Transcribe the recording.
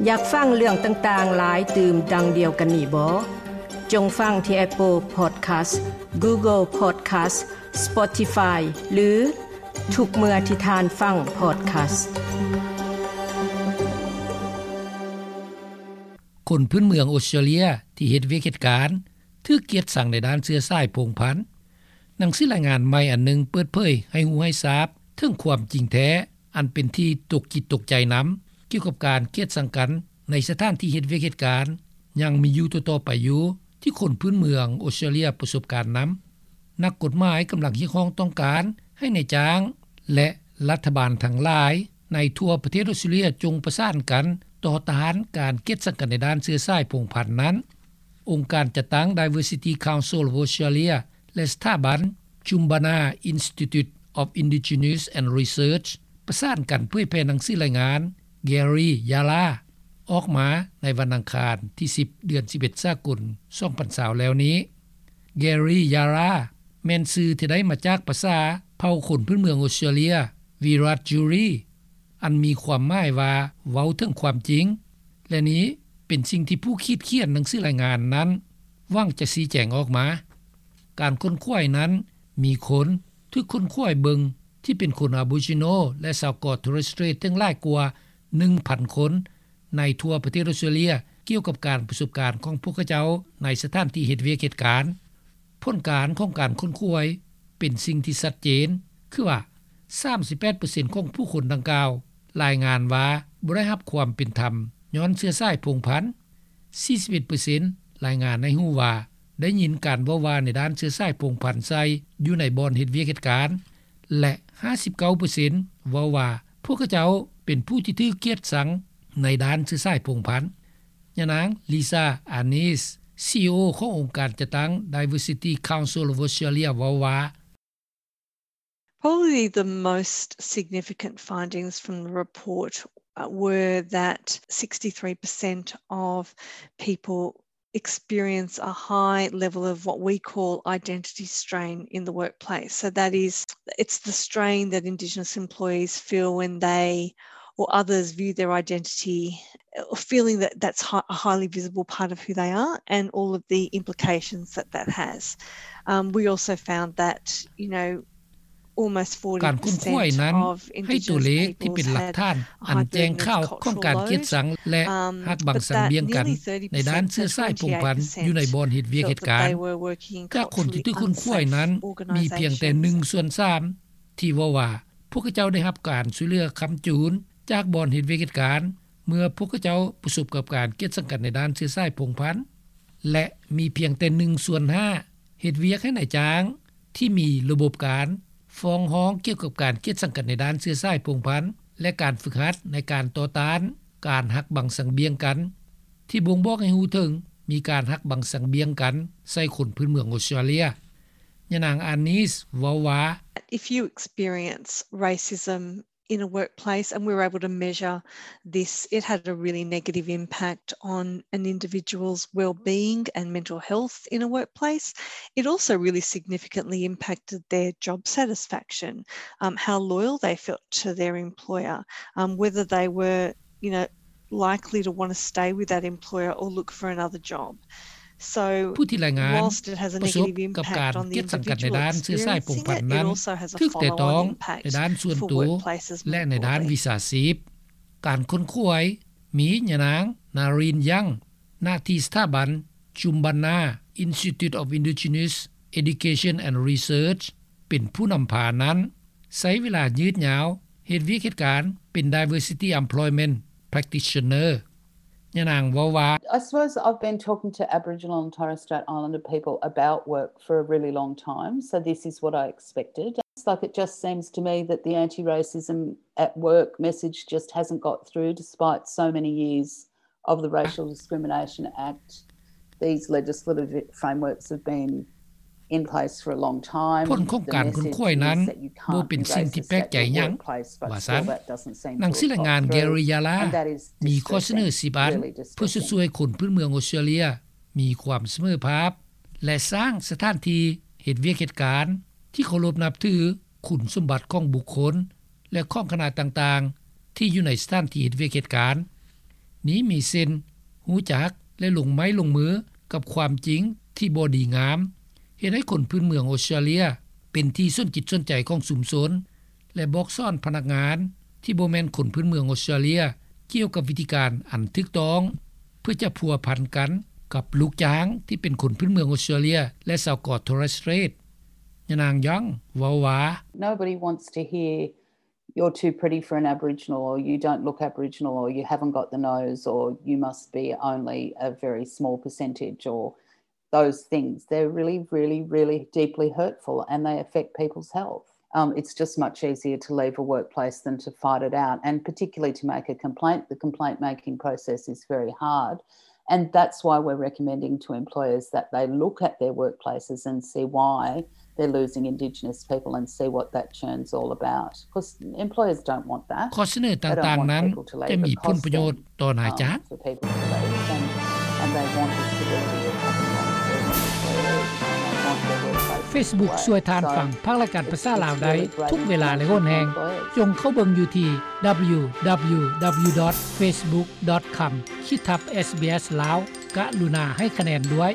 ຢາກຟັງເລື່ອງຕ່າງໆຫຼາຍຕື່ມດັ່ງດຽວກັນນີ້ບໍ? ຈົ່ງຟັງທີ່ Apple Podcast, Google Podcast, Spotify ຫຼື ທຸກເມື່ອທີ່ທ່ານຟັງ podcast. ຄົນພື້ນເມືອງອົດສະຕຣາເລຍທີ່ເຮັດວຽກເຮັດການ ຖືກກຽດຊັງໃນດ້ານເຊື້ອສາຍພົງພັນ. ໜັງສືລາຍງານໃໝ່ອັນໜຶ່ງເປີດເຜີຍໃຫ້ຮູ້ໃຫ້ຊາບເຖິງຄວາມຈິງແທ້ ອັນເປັນທີ່ຕົກຈິດຕົກໃຈນຳ ກ່ຽວກັບການກຽດຊັງກັນໃນສະຖານທີ່ເຮັດວຽກເຮັດການ ຍັງມີຢູ່ຕໍ່ໆໄປຢູ່ ທີ່ຄົນພື້ນເມືອງອົດສະຕຣາເລຍປະສົບການນຳ. ນັກກົດໝາຍກຳລັງຮຽກຮ້ອງຕ້ອງການໃຫ້ນາຍຈ້າງ ແລະ ລັດຖະບານທັງຫຼາຍໃນທົ່ວປະເທດອົດສະຕຣາເລຍ ຈົ່ງປະສານກັນຕໍ່ຕ້ານການກຽດຊັງກັນໃນດ້ານເຊື້ອສາຍພົງພັນນັ້ນ. ອົງການຈັດຕັ້ງ Diversity Council of Australia ແລະ ສະຖາບັນ Jumbunna Institute of Indigenous and Research ປະສານກັນເຜີຍແຜ່ໜັງສືລາຍງານ Gary Yala ອອກມາໃນວັນອັງຄານທີສິບ ເດືອນສິບເອັດ ສາກົນ ສອງພັນຊາວແລ້ວນີ້. Gary Yala ແມ່ນຊື່ທີ່ໄດ້ມາຈາກພາສາເຜົ່າຄົນພື້ນເມືອງອົດສະຕຣາເລຍ Wiradjuri ອັນມີຄວາມໝາຍວ່າເວົ້າເຖິງຄວາມຈິງ ແລະ ນີ້ເປັນສິ່ງທີ່ຜູ້ຂີດຂຽນໜັງສືລາຍງານນັ້ນຫວັງຈະຊີ້ແຈງອອກມາ. ການຄົ້ນຄວ້ານັ້ນມີຄົນຖືກຄົ້ນຄວ້າເບິ່ງທີ່ເປັນຄົນ Aboriginal ແລະ ຊາວເກາະ Torres Strait ເຖິງຫຼາຍກວ່າໜຶ່ງພັນຄົນ ໃນທົ່ວປະເທດອົດສະຕຣາເລຍ ກ່ຽວກັບການປະສົບການຂອງພວກເຂົາເຈົ້າໃນສະຖານທີ່ເຮັດວຽກເຮັດການ. ຜົນການຂອງການຄົ້ນຄວ້າເປັນສິ່ງທີ່ຊັດເຈນ ຄືວ່າ ສາມສິບແປດເປີເຊັນຂອງຜູ້ຄົນດັ່ງກ່າວລາຍງານວ່າບໍ່ໄດ້ຮັບຄວາມເປັນທຳຍ້ອນເຊື້ອສາຍພົງພັນ, ສີ່ສິບເອັດເປີເຊັນລາຍງານໃຫ້ຮູ້ວ່າໄດ້ຍິນການເວົ້າວ່າໃນດ້ານເຊື້ອສາຍພົງພັນໃສ່ຢູ່ໃນບ່ອນເຮັດວຽກເຮັດການ ແລະ ຫ້າສິບເກົ້າເປີເຊັນເວົ້າວ່າພວກເຂົາເຈົ້າເປັນຜູ້ທີ່ຖືກກຽດຊັງໃນດ້ານເຊື້ອສາຍພົງພັນ. ຍານາງ Lisa Arness, CEO ຂອງອົງການຈັດຕັ້ງ Diversity Council of Australia ເວົ້າວ່າ, Probably the most significant findings from the report, uh, were that sixty-three percent of people experience a high level of what we call identity strain in the workplace. So that is, it's the strain that Indigenous employees feel when they or others view their identity, uh, feeling that that's hi-, a highly visible part of who they are and all of the implications that that has. Um, we also found that, you know, ການຄົ້ນຄວ້ານັ້ນໃຫ້ຕົວເລກທີ່ເປັນຫຼັກຖານອັນແຈ້ງຂ່າວຂອງການກຽດຊັງ ແລະ ຫັກບັງສັງບຽງກັນໃນດ້ານເຊື້ອສາຍພົງພັນຢູ່ໃນບ່ອນເຮັດວຽກເຮັດການ. ຈາກຄົນທີ່ຖືກຄົ້ນຄວ້ານັ້ນ ມີພຽງແຕ່ໜຶ່ງສ່ວນສາມທີ່ເວົ້າວ່າພວກເຂົາເຈົ້າໄດ້ຮັບການຊ່ວຍເຫຼືອຄ້ຳຈູນຈາກບ່ອນເຮັດວຽກເຮັດການ ເມື່ອພວກເຂົາເຈົ້າປະສົບກັບການກຽດຊັງກັນໃນດ້ານເຊື້ອສາຍພົງພັນ ແລະ ມີພຽງແຕ່ໜຶ່ງສ່ວນຫ້າເຮັດວຽກໃຫ້ນາຍຈ້າງ ທີ່ມີລະບົບການຟ້ອງຮ້ອງກ່ຽວກັບການກຽດສັງກັນໃນດ້ານເຊື້ອສາຍພົງພັນ ແລະ ການຝຶກຫັດໃນການຕໍ່ຕ້ານການຫັກບັງສັງບຽງກັນ ທີ່ບົ່ງບອກໃຫ້ຮູ້ເຖິງມີການຫັກບັງສັງບຽງກັນໃສ່ຄົນພື້ນເມືອງອົດສະຕຣາເລຍ. ຍານາງ Arness ເວົ້າວ່າ, If you experience racism in a workplace, and we were able to measure this, it had a really negative impact on an individual's well-being and mental health in a workplace. It also really significantly impacted their job satisfaction, um, how loyal they felt to their employer, um, whether they were, you know, likely to want to stay with that employer or look for another job. ຜູ້ທີ່ລາຍງານປະສົບກັບການກຽດສັງກັນໃນດ້ານເຊື້ອສາຍພົງພັນນັ້ນ ຖືກແຕະຕ້ອງໃນດ້ານສ່ວນໂຕ ແລະ ໃນດ້ານວິຊາຊີບ. ການຄົ້ນຄວ້າມີຍານາງ Nareen Young ນາທີ່ສະຖາບັນ Jumbunna Institute of Indigenous Education and Research ເປັນຜູ້ນຳພານັ້ນ ໃຊ້ເວລາຍືດຍາວເຮັດວຽກເຮັດການເປັນ diversity employment practitioner. ຍານາງເວົ້າວ່າ, I suppose I've been talking to Aboriginal and Torres Strait Islander people about work for a really long time, so this is what I expected. It's like, it just seems to me that the anti-racism at work message just hasn't got through despite so many years of the Racial Discrimination Act. These legislative frameworks have been ຜົນຂອງການຄົ້ນຄວ້ານັ້ນບໍ່ເປັນສິ່ງທີ່ແປກໃຈຫຍັງ, ວ່າຊັ້ນ. ໜັງສືລາຍງານ Gary Yala ມີຂໍ້ສະເໜີສິບອັນ ເພື່ອຈະຊ່ວຍຄົນພື້ນເມືອງອົດສະຕຣາເລຍມີຄວາມສະເໝີພາບ ແລະ ສ້າງສະຖານທີ່ເຮັດວຽກເຮັດການທີ່ເຄົາລົບນັບຖືຄຸນສົມບັດຂອງບຸກຄົນ ແລະ ຂອງຄະນະຕ່າງໆ ທີ່ຢູ່ໃນສະຖານທີ່ເຮັດວຽກເຮັດການ. ນີ້ມີເຊັ່ນ: ຮູ້ຈັກ ແລະ ລົງໄມ້ລົງມືກັບຄວາມຈິງທີ່ບໍ່ດີງາມ, ເຮັດໃຫ້ຄົນພື້ນເມືອງອອສເຕຣເລັຽເປັນທີ່ສົນຈິດສົນໃຈຂອງຊຸມຊົນ ແລະ ບອກສອນພະນັກງານທີ່ບໍ່ແມ່ນຄົນພື້ນເມືອງອອສເຕຣເລັຽກ່ຽວກັບວິທີການອັນຖືກຕ້ອງ ເພື່ອຈະພົວພັນກັນກັບລູກຈ້າງທີ່ເປັນຄົນພື້ນເມືອງອອສເຕຣເລັຽ ແລະ ຊາວເກາະໂທເຣັສເຕຣດ. ຍານາງ Young ເວົ້າວ່າ: Nobody wants to hear you're too pretty for an Aboriginal, or you don't look Aboriginal, or you haven't got the nose, or you must be only a very small percentage, or those things. They're really, really, really deeply hurtful and they affect people's health. Um, it's just much easier to leave a workplace than to fight it out, and particularly to make a complaint. The complaint making process is very hard. And that's why we're recommending to employers that they look at their workplaces and see why they're losing Indigenous people and see what that churn's all about. 'Cause employers don't want that. ຂໍ້ສະເໜີຕ່າງໆນັ້ນຈະມີຜົນປະໂຫຍດຕໍ່ນາຍຈ້າງ. Facebook ຊ່ວຍທ່ານຟັງພາກລາຍການພາສາລາວໄດ້ທຸກເວລາ ແລະ ຫົນແຮງ. ຈົ່ງເຂົ້າເບິ່ງຢູ່ທີ່ www.facebook.com/sbslao. ກະລຸນາໃຫ້ຄະແນນດ້ວຍ.